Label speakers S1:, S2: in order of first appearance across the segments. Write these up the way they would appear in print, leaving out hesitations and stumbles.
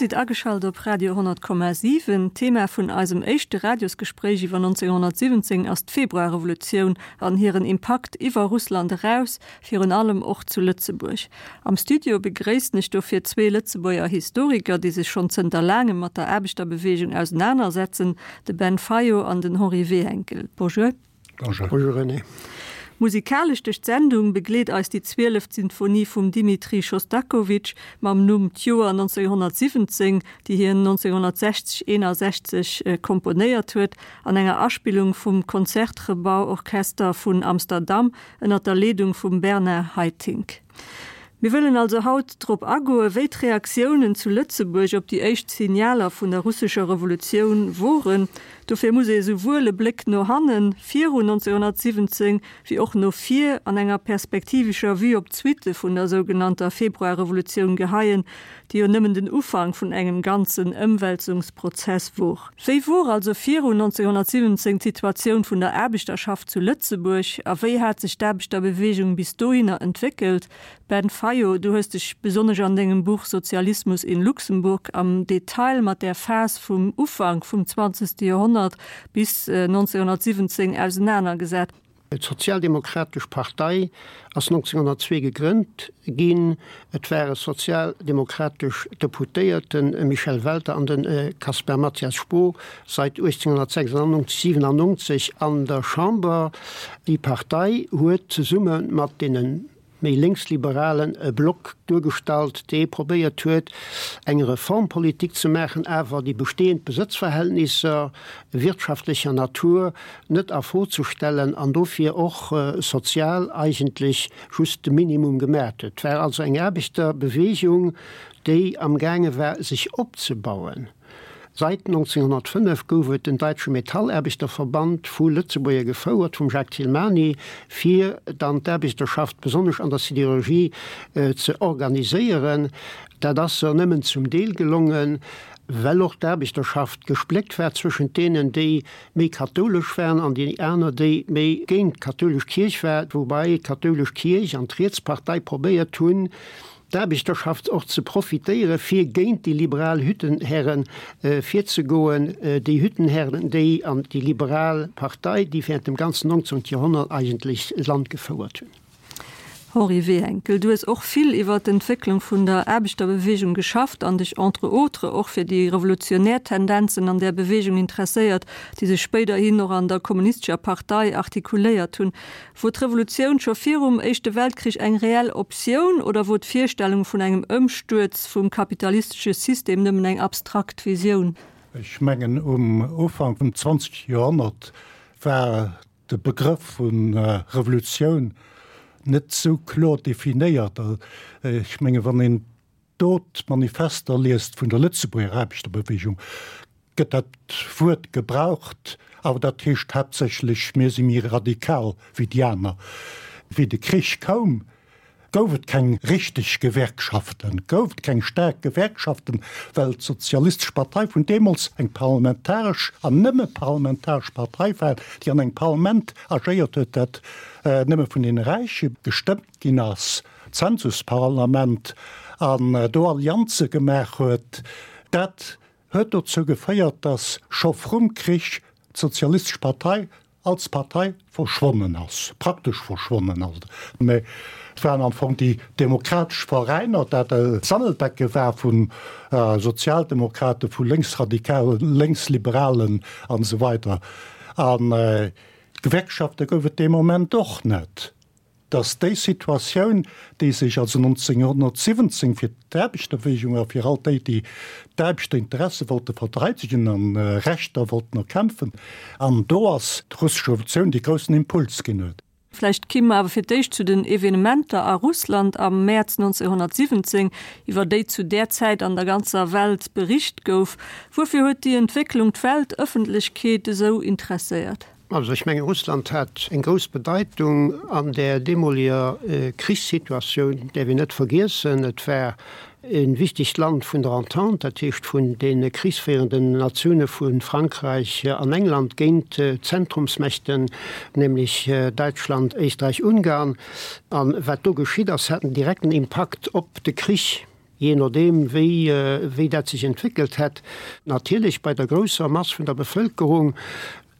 S1: Dir sidd ageschalt op Radio 100,7. D'Thema vun eisem éischte Radiosgespréich iwwer 1917 ass d'Februarrevolutioun an hiren Impakt iwwer Russland eraus, virun allem och zu Lëtzebuerg. Am Studio begréissen ech dofir zwee Lëtzebuerger Historiker, déi sech schonn zënter laangem mat der Aarbechterbeweegung ausenanersetzen, de Ben Fayot an den Henri Wehenkel. Bonjour.
S2: Bonjour. Bonjour René.
S1: Musikalesch duerch d'Sendung begleet eis déi zwieleft Sinfonie vum Dimitri Schostakowitsch mam Numm D'Joer 1917, déi hien 1960, 61 komponéiert huet, an enger Aspillung vum Concertgebouw-Orchester vun Amsterdam ënner der Leedung vum Bernard Haitink. Mir wëllen also haut drop agoen, wéi d'Reaktiounen zu Lëtzebuerg op déi éischt Signaler vun der russescher Revolutioun woren. Dofir muss ee souwuel e Bléck no hannen, virun 1917, wéi och no vir, an enger perspektivescher Vue op d'Suitte vun der sougenannter Februarrevolutioun geheien, déi jo nëmmen den Ufank vun engem ganzen Ëmwälzungsprozess wor. Wéi wor also virun 1917 d'Situatioun vun der Aarbechterschaft zu Lëtzebuerg a wéi hat sech d'Aarbechterbewegung bis dohinner entwéckelt? Ben Fayot, du hues dech besonnesch an dengem Buch Sozialismus in Luxemburg am Detail mat där Phas vum Ufank vum zwanzegste Joerhonnert bis 1917 ausenanergesat.
S2: D'Sozialdemokratesch Partei ass 1902 gegrënnt ginn. Et ware sozialdemokratesch Deputéierten, Michel Welter an de Caspar Mathias Spoo, seit 1896, 97 an der Chamber. Déi Partei huet zesumme mat deene méi lénksliberalen e Block duergestallt, dee probéiert huet, eng Reformpolitik ze maachen, awer déi bestehend Besëtzverhältnisser wirtschaftlecher Natur net a Fro ze stellen an dofir och sozial eigentlech just de Minimum gemaat huet. Et war also eng Aarbechterbewegung, déi amgaange war, sech opzebauen. Seit 1905 gouf et den Deutsche Metallaarbechterverband, vu Lëtzebuerger gefouert, vum Jacques Thilmany, fir dann d'Aarbechterschaft besonnesch an der Sidérurgie ze organiséieren. Dat ass se nëmmen zum Deel gelongen, well och d'Aarbechterschaft gespléckt war zwëschent deenen, déi méi kathoulesch waren an déi aner, déi méi géint d'kathoulesch Kierch war, woubäi d'kathoulesch Kierch an d'Rietspartei probéiert hunn, d'Aarbechterschaft och ze profitéiere fir géint déi liberal Hüttenherren virzegoen, déi Hüttenherren, déi an déi liberal Partei, déi während dem ganzen 19. Joerhonnert eigentlech d'Land gefouert hunn.
S1: Henri Wehenkel, du hues och vill iwwer d'Entwécklung vun der Aarbechterbewegung geschafft an dech entre autres och fir déi revolutionär Tendenzen an där Bewegung interesséiert, déi sech spéiderhin och an der Kommunistescher Partei artikuléiert hunn. Wor d'Revolutioun scho virum Éischte Weltkrich eng reell Optioun oder wor d'Virstellung vun engem Ëmstuerz vum kapitalistesche System nëmmen eng abstrakt Visioun?
S3: Ech mengen, um Ufank vum 20. Joerhonnert war de Begrëff vu Revolutioun net esou kloer definéiert. Ech mengen, wann een do d'Manifester liest vun der Lëtzebuerger Aarbechterbewegung, gëtt dat Wuert gebraucht, awer dat heescht haaptsächlech, mir si méi radikal wéi déi aner. Wéi de Krich koum, gouf et keng richteg Gewerkschaften, gouf et keng staark Gewerkschaften, well d'Sozialistesch Partei vun deemools eng parlamentaresch an nëmme parlamentaresch Partei war, déi an engem Parlament agéiert huet, dat nëmme vun deene Räiche gestëmmt ginn ass. Zensusparlament an do Allianze gemaach huet, dat huet dozou geféiert, datt scho vrum Krich d'Sozialistesch Partei als Partei verschwonnen ass, praktesch verschwonnen ass. Mä et waren am Fong déi demokratesch Veräiner, dat e Sammelbecke war vu Sozialdemokraten, vu Lénksradikalen, Lénksliberalen an esou weider. A Gewerkschafte gouf et dee Moment och net. dass déi Situatioun, déi sech also 1917 fir d'Aarbechterbewegung a fir all déi, déi d'Aarbechterinteresse wollte verteidegen an Rechter wollten erkämpfen, an do ass d'russesch Revolutioun dee groussen Impuls ginn huet.
S1: Vläicht ki mer awer fir d'éischt zu den Evenementer a Russland am Mäerz 1917, iwwer déi zu där Zäit an der ganzer Welt bericht gouf. Wuerfir huet déi Entwécklung d'Weltëffentlechkeet esou interesséiert?
S2: Also ech mengen, Russland hat eng grouss Bedeitung an där deemoliger Krichssituatioun, däerf een net vergiessen. Et war e wichtegt Land vun der Entente, dat heescht vun deene krichsféierenden Natioune vu Frankräich an England géint d'Zentrumsmächten, nämlech Däitschland, Éisträich, Ungarn. A wat do geschitt ass, hat en direkten Impakt op de Krich. Jee nodeem wéi wéi dat sech entwéckelt hätt. Natierlech bei der grousser Mass vun der Bevëlkerung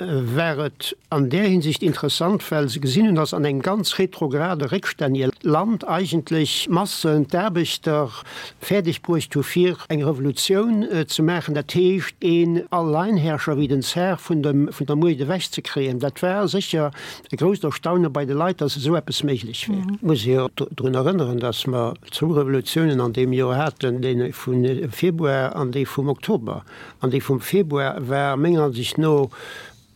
S2: war et an där Hinsicht interessant, well se gesinn hunn, datt an engem ganz retrograde, réckstännege Land eigentlech d'Massen, d'Aarbechter fäerdeg bruecht hu fir eng Revolutioun ze maachen, dat heescht een Alleinherrscher wéi den Zar vun dem vun der Muecht ewech ze kréien. Dat war sécher e grousst Erstaune bei de Leit, datt esou eppes méiglech wär. Et muss ee jo drun erënneren, datt mer zwou Revolutiounen an deem Joer haten, déi vu Februar an déi vum Oktober. An déi vum Februar war menger Ansicht no,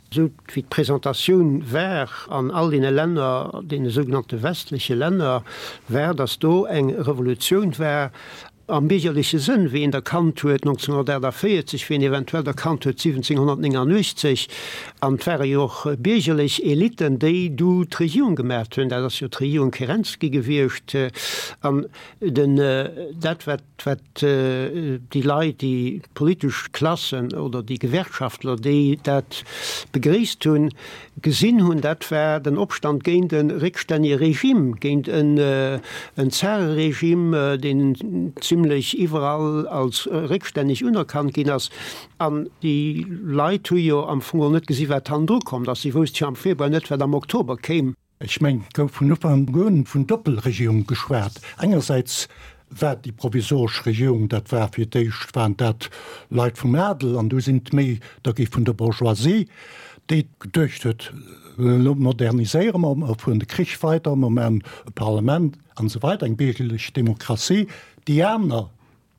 S2: esou wéi d'Presentatioun war an all deene Länner, deene sougenannte westleche Länner, war, datt do eng Revolutioun war am biergerleche Sënn, wéi een der kannt huet 1948, wéi een eventuell der kannt huet 1789. An et ware jo och biergerlech Eliten, déi du d'Regierung gemaacht hunn. Dat ass jo d'Regierung Kerensky gewiescht. An den, dat wat, wat déi Leit, déi politesch Klassen oder déi Gewerkschaftler, déi dat begréisst hunn, gesinn hunn, dat war den Opstand géint e réckstännege Regime, géint en Zareregime, deen zimlech iwwerall als réckstänneg unerkannt ginn ass. An déi Leit hu jo am Fong och net gesi wat hannendru kommt ass. Si wousste jo am Februar net, wat am Oktober kéim.
S3: Ech mengen, et gouf vun Ufank un vun Doppelregierung geschwat. Engersäits war déi provisoresch Regierung, dat war fir d'éischt waren dat Leit vum Adel an du sinn et méi der gi vun der Bourgeoisie, déi geduecht huet, elo moderniséiere mer, mer fueren de Krich weider, mer maachen e Parlament an esou weider, eng biergerlech Demokratie. Déi aner,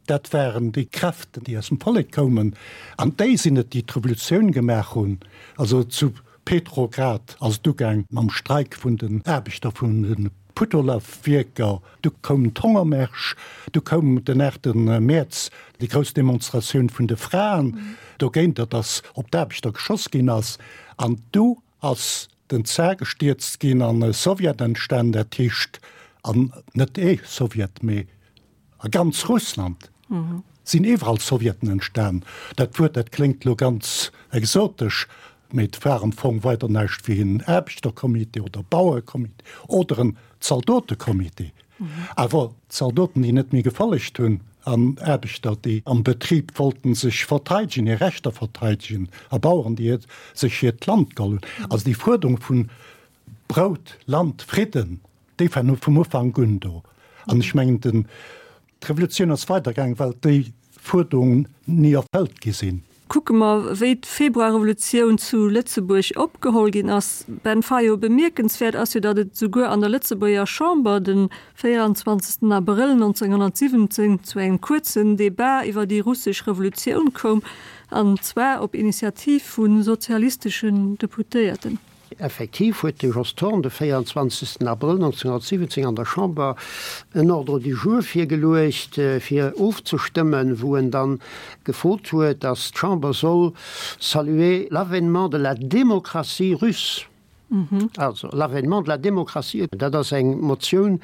S3: Dat waren déi Kräften, déi aus dem Vollek koumen, an déi sinn et, déi d'Revolutioun gemaach hunn. Also zu Petrograd ass et ugaang mam Streik vun den Aarbechter vun de Putolawwierker, du koumen d'Hongermärsch, du koum den 8 Mäerz déi grouss Demonstratioun vun de Fraen dogéinter, datt op d'Aarbechter geschoss ginn ass, an du ass den Zar gestierzt ginn an e Sowjet entstan, dat heescht, an net ee Sowjet, mee A ganz Russland sinn iwwerall Sowjeten entstan. Dat Wuert, dat kléngt elo ganz exotesch, mee et war am Fong weider näischt wéi en Aarbechtercomité oder Bauerecomité oder en Zaldotecomité. Awer Zaldoten, déi net méi gefollegt hunn, an Aarbechter, déi am Betrib wollten sech verteidegen, hir Rechter verteidegen, a Baueren, déi sech hiert Land geholl hunn. Also déi Fuerderung vun Brout, Land, Fridden, Déi waren vum Ufank un do. An ech mengen, den, d'Revolutioun ass weidergaangen, well déi Fuerderungen ni erfëllt gi sinn.
S1: Kucke mer, wéi d'Februarrevolutioun zu Lëtzebuerg opgeholl ginn ass. Ben Fayot, Bemierkenswäert ass jo, datt et esouguer an der Lëtzebuerger Chamber de 24 Abrëll 1917 zu engem kuerzen Debat iwwer déi russesch Revolutioun koum, an zwar op Initiativ vu sozialisteschen Deputéierten.
S2: Effektiv huet de Jos Thorn de 24 Abrëll 1917 an der Chamber en Ordre du jour virgeluecht, fir ofzestëmmen, wou en dann gefrot huet, datt d'Chamber soll saluer l'avènement de la démocratie russe. Also, l'avènement de la démocratie, dat ass eng Motioun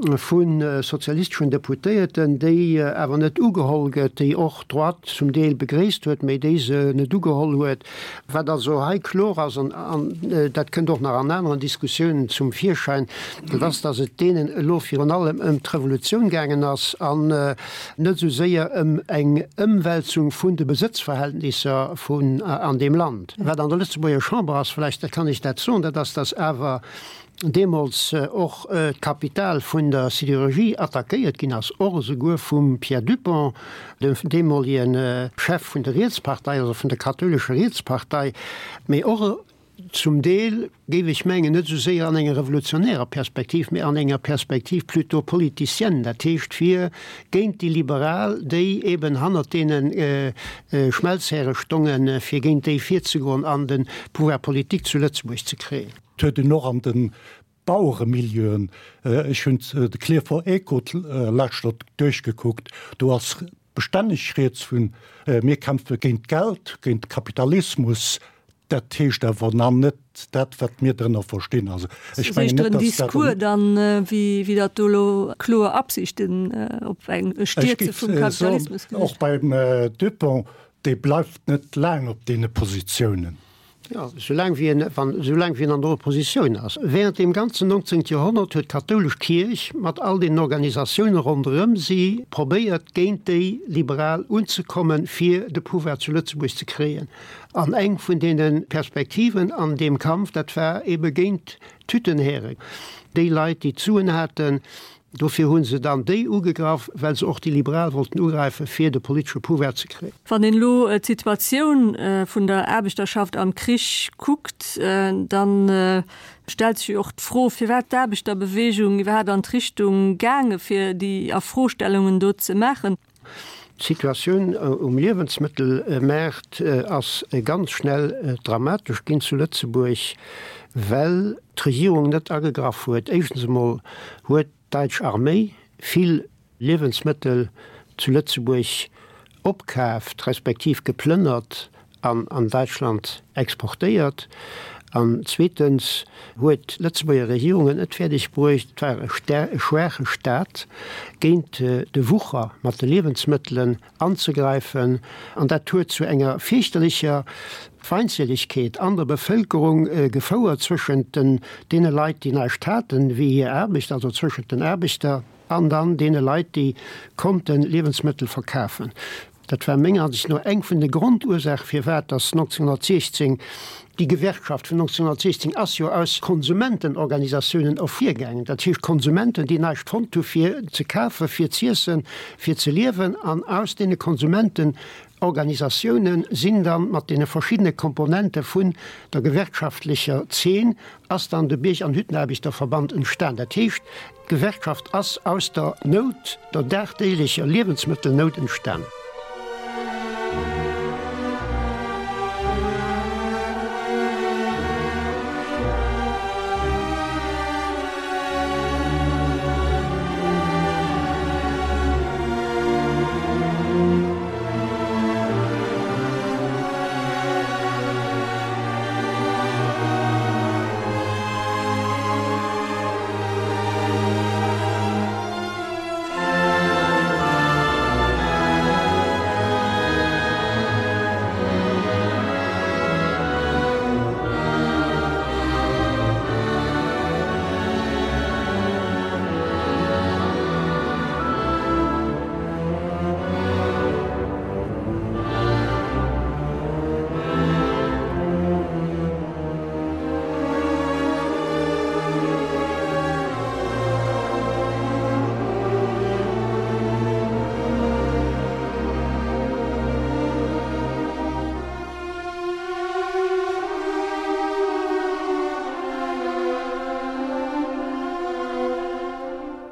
S2: vu sozialisteschen Deputéierten, déi awer net ugeholl gëtt, déi och d'Droite zum Deel begréisst huet, mä déi se net ugeholl huet. Wat also hei kloer ass, an dat kënnt och nach an aneren Diskussiounen zum Virschäin, dat ass, datt et deenen elo virun allem ëm d'Revolutioun gaangen ass an net esou séier ëm eng Ëmwälzung vun de Besëtzverhältnisser vun an deem Land. Wat an der Lëtzebuerger Chamber ass, vläicht kann ech dat soen, dat ass, datt awer deemools och d'Kapital vun der Sidérurgie attackéiert ginn ass, och esouguer vum Pierre Dupong, dem deemolege Chef vun der Rietspartei, also vun der kathoulescher Rietspartei, mee och zum Deel, géif ech mengen, net esou séier an enger revolutionärer Perspektiv, mee an enger Perspektiv plutôt politicienne, dat heescht fir géint déi Liberal, déi eben hannert deene Schmelzhäre stongen, fir géint déi virzegoen an de Pouvoir politique zu Lëtzebuerg ze kréien.
S3: Et huet een och an de Baueremilieuen, ech hunn de Klierfer Echo d'lescht duerchgekuckt, do ass bestänneg rieds vun, mir kämpfe géint d'Geld, géint de Kapitalismus. Dat heescht awer nach net dat, wat mir drënner verstinn.
S1: Also ech mengen net, datt dat. Discours dann, wéi datt do elo kloer Absichten op eng Stierze vum Kapitalismus
S3: gewiescht. Och beim Dupong, dee bleift net laang op deene Positiounen.
S2: Jo, soulaang wéi en, wann, soulaang wéi en an der Oppositioun ass. Während deem ganzen 19. Joerhonnert huet d'kathoulesch Kierch mat all deenen Organisatioune ronderëm si probéiert, géint déi Liberal unzekommen, fir de Pouvoir zu Lëtzebuerg ze kréien. An eng vun deene Perspektiven an deem Kampf, dat war ebe géint d'Hüttenhären, déi Leit, déi d'Suen haten. Dofir hu se dann déi ugegraff, well se och déi Liberal wollten ugräifen, fir de politesche Pouvoir ze kréien.
S1: Wann een elo d'Situatioun vun der Aarbechterschaft am Krich kuckt, da stellt sech jo och d'Fro, firwat d'Aarbechterbewegung iwwerhaapt an d'Richtung gaange fir déi Afrostellungen do ze maachen.
S2: D'Situatioun um Liewensmëttelmaart ass ganz schnell dramatesch ginn zu Lëtzebuerg, well d'Regierung net agegraff huet. Éischtens emol huet d'däitsch Arméi vill Liewensmëttel zu Lëtzebuerg opkaaft, respektiv geplënnert an an Däitschland exportéiert. An zweetens huet d'Lëtzebuerger Regierung et net fäerdeg bruecht, et war e schwaache Staat, géint de Wucher mat de Liewensmëttelen anzegräifen. An dat huet zu enger fierchterlecher Feindseligkeet an der Bevëlkerung gefouert zwëschent deene Leit, déi näischt haten, wéi hir Aarbecht, also zwëschent den Aarbechter an dann deene Leit, déi konnte Liewensmëttel verkafen. Dat war menger Ansicht no eng vun de Grondursache firwat dass 1916, déi Gewerkschaft vun 1916 ass jo aus Konsumentenorganisatiounen ervirgaangen, dat heescht Konsumenten, déi näischt fonnt hu fir ze kafen, fir z'iessen, fir ze liewen, an aus deene Konsumentenorganisatiounen sinn dann mat deene verschiddene Komponente vun der gewerkschaftlecher Zeen ass dann de Bierg an Hüttenaarbechterverband entstan. Dat heescht, D'Gewerkschaft ass aus der Nout, der dagdeeglecher Liewensmëttelnout entstan.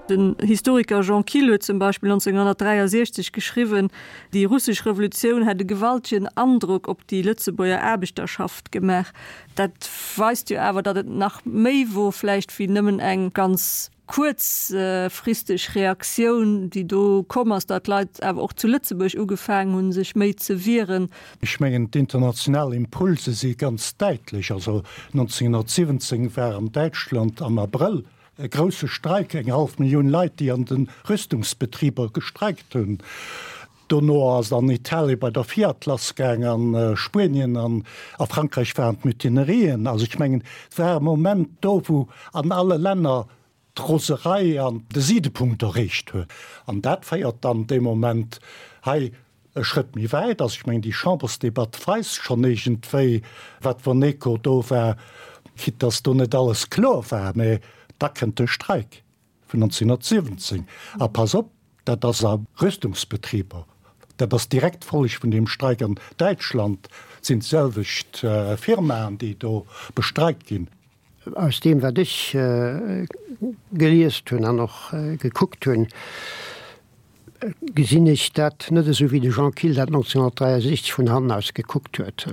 S1: Den Historiker Jean Kill huet zum Beispill 1963 geschriwwen, déi russesch Revolutioun hätt e gewaltegen Androck op déi Lëtzebuerger Aarbechterschaft gemaach. Dat weist jo awer, datt et nach méi wor vläicht wéi nëmmen eng ganz kuerzfristeg Reaktioun, déi do komm ass, datt d'Leit awer och zu Lëtzebuerg ugefaangen hunn, sech méi ze wieren.
S3: Ech mengen, d'international Impulse si ganz däitlech. Also 1917 war an Däitschland am Abrëll e grousse Streik, eng hallef Millioun Leit, déi an de Rüstungsbetriber gestreikt hunn. Dono ass et an Italie bei der Fiat lass gaang, a Spuenien an a Frankräich waren d'Mutinerien. Also ech mengen, et war e Moment do, wou an alle Länner d'Roserei an de Sidepunkt erreecht huet. An dat féiert dann dee Moment hei e Schrëtt méi wäit. Also ech mengen, déi Chambersdebatt weist schonn iergendwéi, wat wann Echo do war, quitte dass do net alles kloer war, mä da kënnt de Streik. Vun 1917. A pass op, dat ass a Rüstungsbetriber, dat ass direkt d'Folleg vun deem Streik an Däitschland, et sinn d'selwecht Firmaen, déi do bestreikt ginn.
S2: Aus deem, wat ech geliest hunn an och gekuckt hunn, gesinn ech dat net esou wéi de Jean Kill dat 1963 vun hannen aus gekuckt huet.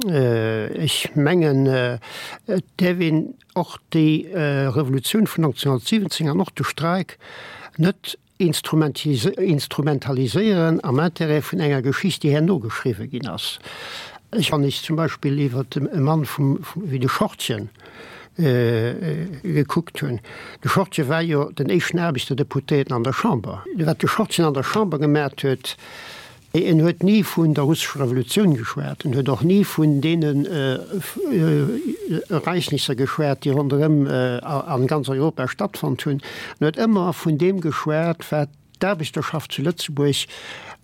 S2: Ech mengen, et däerf een och déi Revolutioun vun 1917 an och de Streik net instrumentaliséieren am Intérêt vun enger Geschicht, déi herno geschriwwe ginn ass. Ech, wann ech zum Beispill iwwer e Mann vum, wéi de Schortgen gekuckt hunn, de Schortgen war jo den éischten Aarbechterdeputéierten an der Chamber. Wat de Schortgen an der Chamber gemaacht huet. En huet ni vun der russescher Revolutioun geschwat, en huet och ni vun deenen Ereignisser geschwat, déi ronderëm a ganz Europa stattfonnt hunn. En huet ëmmer vun deem geschwat, wat d'Aarbechterschaft zu Lëtzebuerg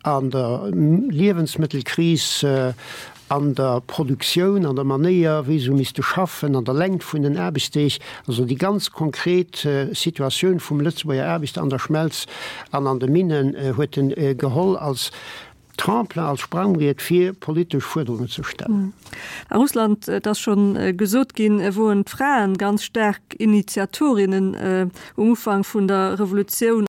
S2: an der Liewensmëttelkris, an der Produktioun, an der Manéier, wéi se hu misste schaffen, an der Längt vun den Aarbechtsdeeg, also déi ganz konkret Situatioun vum Lëtzebuerger Aarbechter an der Schmelz an an de Minnen huet en geholl als Tremplin, als Sprangbriet fir politesch Fuerderungen ze stellen.
S1: A Russland, et ass scho gesot ginn, woren d'Fraen ganz staark Initiatorinnen um Ufank vun der Revolutioun.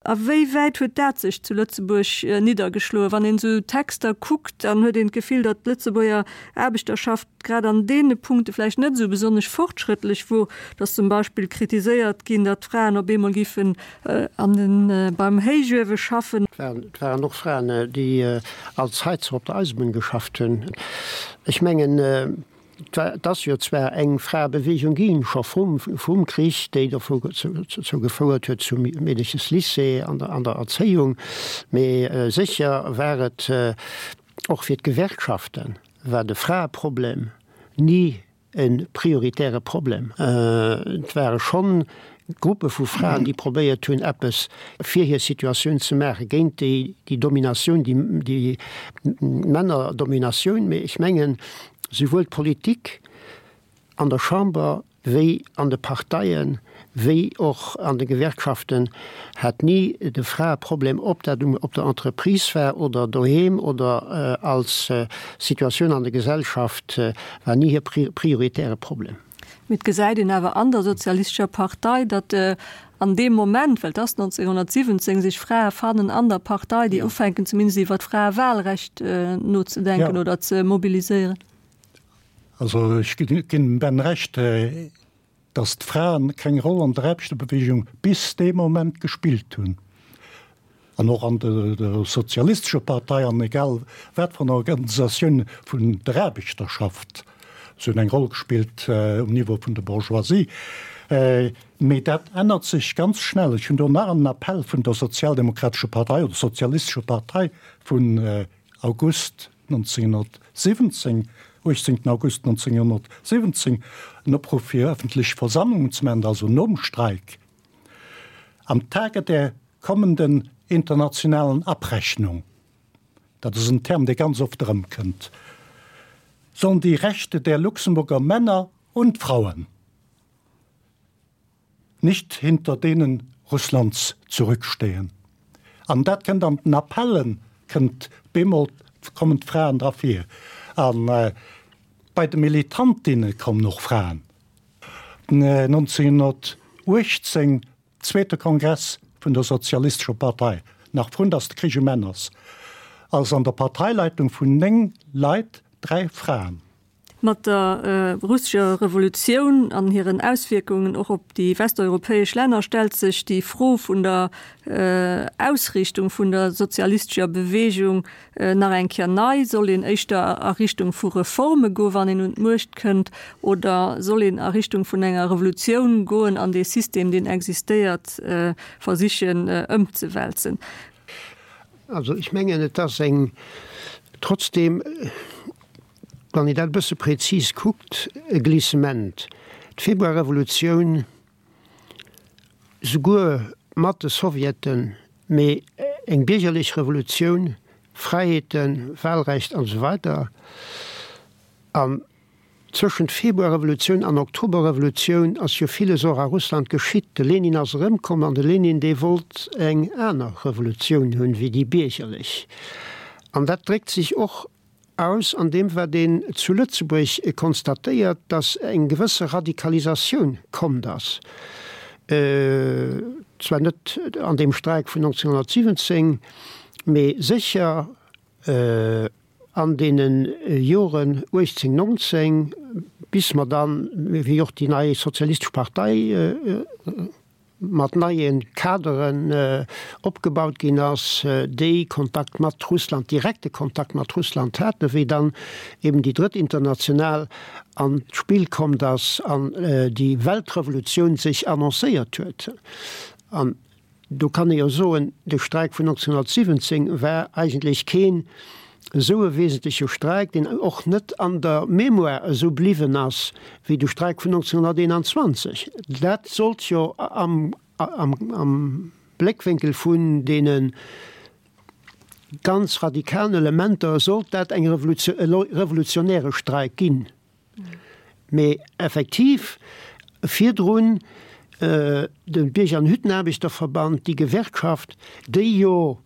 S1: A wéi wäit huet dat sech zu Lëtzebuerg niddergeschloen? Wann een esou Texter kuckt, dann huet een d'Gefill, datt d'Lëtzebuerger Aarbechterschaft grad an deene Punkte vläicht net esou besonnesch fortschrëttlech wor, datt zum Beispill kritiséiert ginn, datt d'Fraen op eemol giffen an den beim Héichuewe schaffen.
S2: Et waren och Fraen, déi als Heizer op der Eisebunn geschafft hunn. Ech mengen, Et ass jo zwar eng Fraebewegung ginn, scho vrum Krich, déi dozou gefouert huet zum Meedeches-Lycée an der Erzéiung, mee sécher war et och fir d'Gewerkschaften war de Fraeproblem ni e prioritäre Problem. Et ware schonn Gruppe vu Fraen, déi probéiert hunn, eppes fir hir Situatioun ze maachen, géint déi Dominatioun, déi Männerdominatioun. Mee ech mengen, souwuel d'Politik an der Chamber wéi an de Parteien, wéi och an de Gewerkschaften hat ni de Fraeproblem, ob dat op der Entreprise war oder doheem oder als Situatioun an der Gesellschaft, war ni hir prioritäre Problem.
S1: Mee et gesäit een awer an der Sozialistescher Partei, datt an deem Moment, well et ass 1917, sech Frae fannen an der Partei, déi ufänken zumindest iwwer d'Fraewahlrecht nozedenken oder ze mobiliséieren.
S3: Also ech ginn dem Ben Recht, datt d'Fraen keng Roll an der Aarbechterbewegung bis dee Moment gespillt hunn. An och an der Sozialistescher Partei an egal wat fir enger Organisatioun vun der Aarbechterschaft. Se hunn eng Roll gespillt um Niveau vun der Bourgeoisie. Mee dat ännert sech ganz schnell. Ech hunn do nach en Appell vun der Sozialdemokratescher Partei oder Sozialistescher Partei vun August 1917, 18 August 1917, en Opruff fir öffentlech Versammlungen ze maachen, also nom Streik, Am Tage der kommenden internationalen Abrechnung, dat ass en Term, dee ganz oft erëmkënnt, sollen die Rechte der Luxemburger Männer und Frauen nicht hinter denen Russlands zurückstehen. An dat kënnt an den Appellen, kënnt bemol, kommen d'Fraen dra vir. A bei de Militantinne kommen och Fraen. 1918 Zweete Kongress vun der Sozialistescher Partei, nach vrun datt de Krich um Enn ass, ass an der Parteileitung vun 9 Leit 3 Fraen.
S1: Mat der russescher Revolutioun an hiren Auswierkungen och op déi westeuropäesch Länner stellt sech déi Fro vun der Ausriichtung vun der sozialistescher Beweegung Nach eng Kéier nei, Soll een éischter a Richtung vu Reforme goen, wann een un d'Muecht kënnt, oder soll een a Richtung vun enger Revolutioun goen an dee System, deen existéiert, versichen ëmzewälzen?
S2: Also ech mengen, et ass eng, trotzdem, wann een dat e bësse prezis kuckt, e Glissement. D'Februarrevolutioun, souguer mat de Sowjeten, mee eng biergerlech Revolutioun, Fräiheeten, Wahlrecht an esou weider. An zwëschent Februarrevolutioun an Oktoberrevolutioun ass jo villes och a Russland geschitt. De Lenin ass erëmkomm an de Lenin, dee wollt eng aner Revolutioun hunn wéi déi biergerlech. An dat dréckt sech och aus an deem wat een zu Lëtzebuerg konstatéiert, datt eng gewësse Radikalisatioun kommt ass, zwar net an deem Streik vun 1917, mee sécher an deene Joren 18, 19, bis mer dann, wéi och déi nei sozialistesch Partei, mat neie Kaderen opgebaut ginn ass, déi Kontakt mat Russland, direkte Kontakt mat Russland haten, wéi dann eben déi Drëtt International an d'Spill kommt ass an déi Weltrevolutioun sech annoncéiert huet. An. Do kann ee jo soen, de Streik vun 1917 war eigentlech keen esou e wesentleche Streik, deen och net an der Mémoire esou bliwwen ass wéi de Streik vun 1921. Dat sollt jo am Bléckwénkel vun deene ganz radikalen Elementer sollt dat eng e revolutionäre Streik ginn. Mee effektiv virdrun de Bierger an Hüttenaarbechterverband, déi Gewerkschaft, déi jo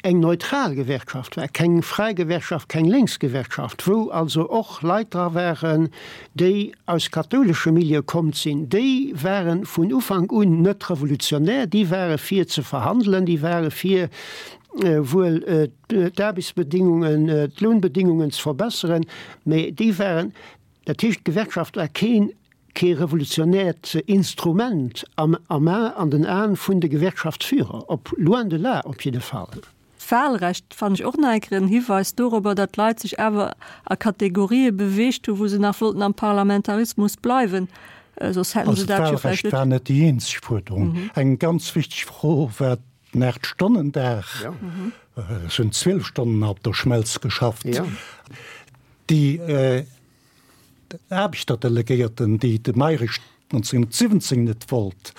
S2: eng neutral Gewerkschaft war, keng fräi Gewerkschaft, keng lénks Gewerkschaft, wou also och Leit dra waren, déi aus kathoulesche Milieue kommt sinn, déi ware vun Ufank un net revolutionär, déi ware fir ze verhandelen, déi ware fir wuel d'Aarbechtsbedingungen, d'Lounbedingungen ze verbesseren, mä déi waren, dat heescht d'Gewerkschaft war keen, kee revolutionäert Instrument am am an den Aen vun de Gewerkschaftsführer, op loin de là op jidde Fall.
S1: D'Wahlrecht fannen ech och nach eng Kéier en Hiweis dorobber, datt d'Leit sech awer a Kategorië beweegt hu wou se nach wollten am Parlamentarismus bleiwen, soss hätten
S3: se dat jo vläicht net. Also d'Wahlrecht war net déi eenzeg Fuerderung. Eng ganz wichteg Fro war Den Aacht-Stonnen-Dag, ech hunn 12 Stonnen op der Schmelz geschafft. Déi Aarbechterdelegéierten, déi de Mayrisch 1917 net wollt,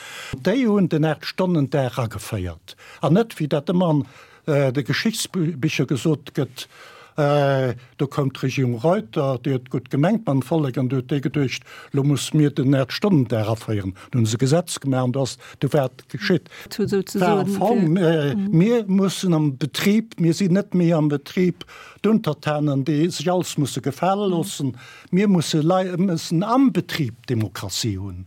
S3: déi hunn den Aacht-Stonnen-Dag ageféiert. An net, wéi dat ëmmer an de Geschichtsbicher gesot gëtt, do koum d'Regierung Reuter, déi huet gutt gemengt mam Vollek an du huet déi geduecht, lo musse mir den Aacht-Stonnen-Dag aféieren. Dann hu se e Gesetz gemaach an do ass, du war et geschitt. War am Fong, mir mussen am Betrib, mir sinn net méi am Betrib d'Untertanen, déi sech alles musse gefale loossen, mir musse Lei, mussen am Betrib Demokratie hunn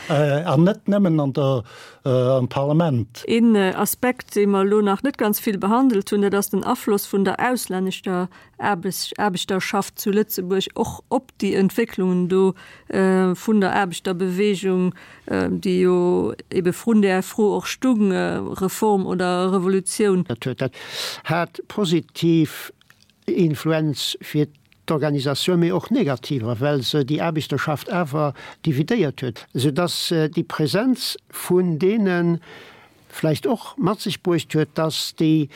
S3: an net nëmmen an der, am Parlament.
S1: Een Aspekt, dee mer elo nach net ganz vill behandelt hunn, dat ass den Afloss vun der auslänneschter Aarbechterschaft zu Lëtzebuerg och op déi Entwécklungen do vun der Aarbechterbewegung, déi jo ebe vrun där Fro och stung, Reform oder Revolutioun.
S2: Dat hat positiv Influenz fir d'Organisatioun, mee och negativer, well se déi Aarbechterschaft awer dividéiert huet, soudass déi Präsenz vun deene vläicht och mat sech bruecht huet, dass déi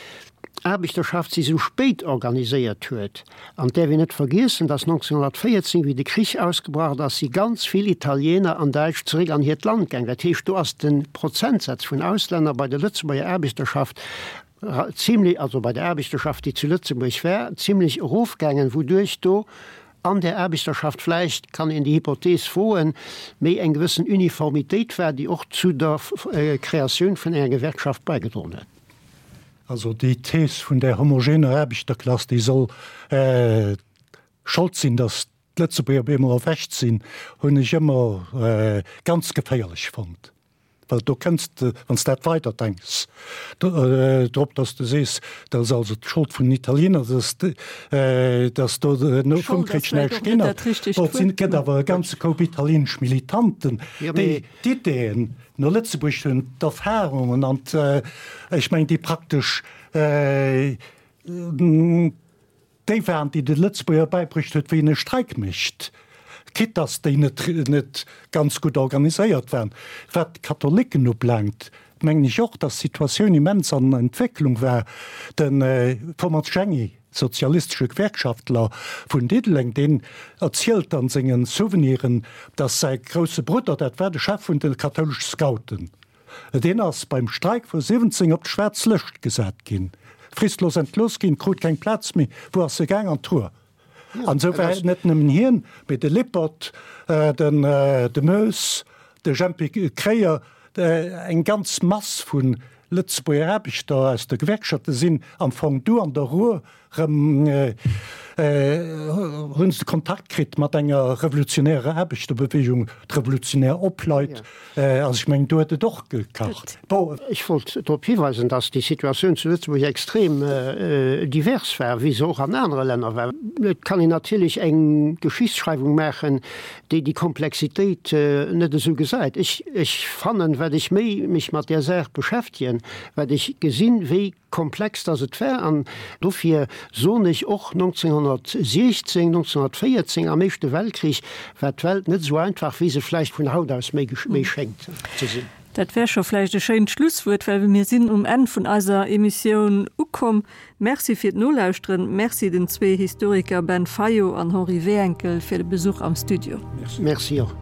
S2: Aarbechterschaft sech esou spéit organiséiert huet. An et däerf een net vergiessen, dass 1914, wéi de Krich ausgebrach ass, si ganz vill Italiener an Däitsch zeréck an hiert Land gaang. Dat heescht, do ass de Prozentsaz vun Auslänner bei der Lëtzebuerger Aarbechterschaft zimlech, also bei der Aarbechterschaft, déi zu Lëtzebuerg war, zimlech erofgaangen, wouduerch do an där Aarbechterschaft vläicht, kann een déi Hypothees woen, méi eng gewëssen Uniformitéit war, déi och zu der Kreatioun vun enger Gewerkschaft baigedroen huet.
S3: Also déi Thees vun där homogener Aarbechterklass, déi soll Schold sinn, datt d'Lëtzebuerger op eemol erwächt sinn, hunn ech ëmmer ganz geféierlech fonnt. Well do kënns de, wann s dat weider denks, drop, datt s de sees, dat ass also d'Schold vun den Italiener, datt do no vum Krich näischt ginn ass. Bon, et gëtt awer e ganze Koup italienesch Militanten, déi d'Ideeën no Lëtzebuerg hunn, d'Erfahrungen an, ech mengen, déi praktesch, Déi waren, déi de Lëtzebuerger bäibruecht huet, wéi een e Streik mécht, quitte dass déi net net ganz gutt organiséiert waren. Wat d'Katholicken ubelaangt, mengen ech och, dass d'Situatioun immens an Entwécklung war. Den Thomas Jenny, sozialistesche Gewerkschaftler vun Diddeleng, deen erzielt an sengen Souveniren, dass säi grousse Brudder, dat war de Chef vun de kathoulesche Scouten, Deen ass beim Streik vu 17 op d'schwaarz Lëscht gesat ginn, fristlos entlooss ginn, krut keng Plaz méi. Wou ass e gaang? An d'Ruhr. An esou war net nëmmen hien, mee de Lippert, den de Moes, de Jempy Kreyer, eng ganz Mass vu Lëtzebuerger Aarbechter aus de Gewerkschafte sinn am Fong du an der Ruhr Rëm hunn se Kontakt kritt mat enger revolutionärer Aarbechterbewegung, d'Revolutionär Opleit. Also ech mengen, do huet et och gekacht.
S2: Bon, ech wollt drop hiweisen, datt déi Situatioun zu Lëtzebuerg extrem divers war, wéi se och an anere Länner war. Et kann een natierlech eng Geschichtsschreiwung maachen, déi déi Komplexitéit net esou gesäit. Ech, ech fannen, wat ech méi mech mat där Saach beschäftegen, wat ech gesinn, wéi komplex dass et war, an dofir soen ech och, 1916, 1914, am Éischte Weltkrich war d'Welt net esou einfach, wéi se vläicht vun haut aus méi schéngt ze sinn.
S1: Dat wär scho vläicht e schéint Schlusswuert, well mir sinn um Enn vun eiser Emissioun ukomm. Merci fir d'Nolauschteren. Merci den zwee Historiker Ben Fayot an Henri Wehenkel fir de Besuch am Studio.
S2: Merci och.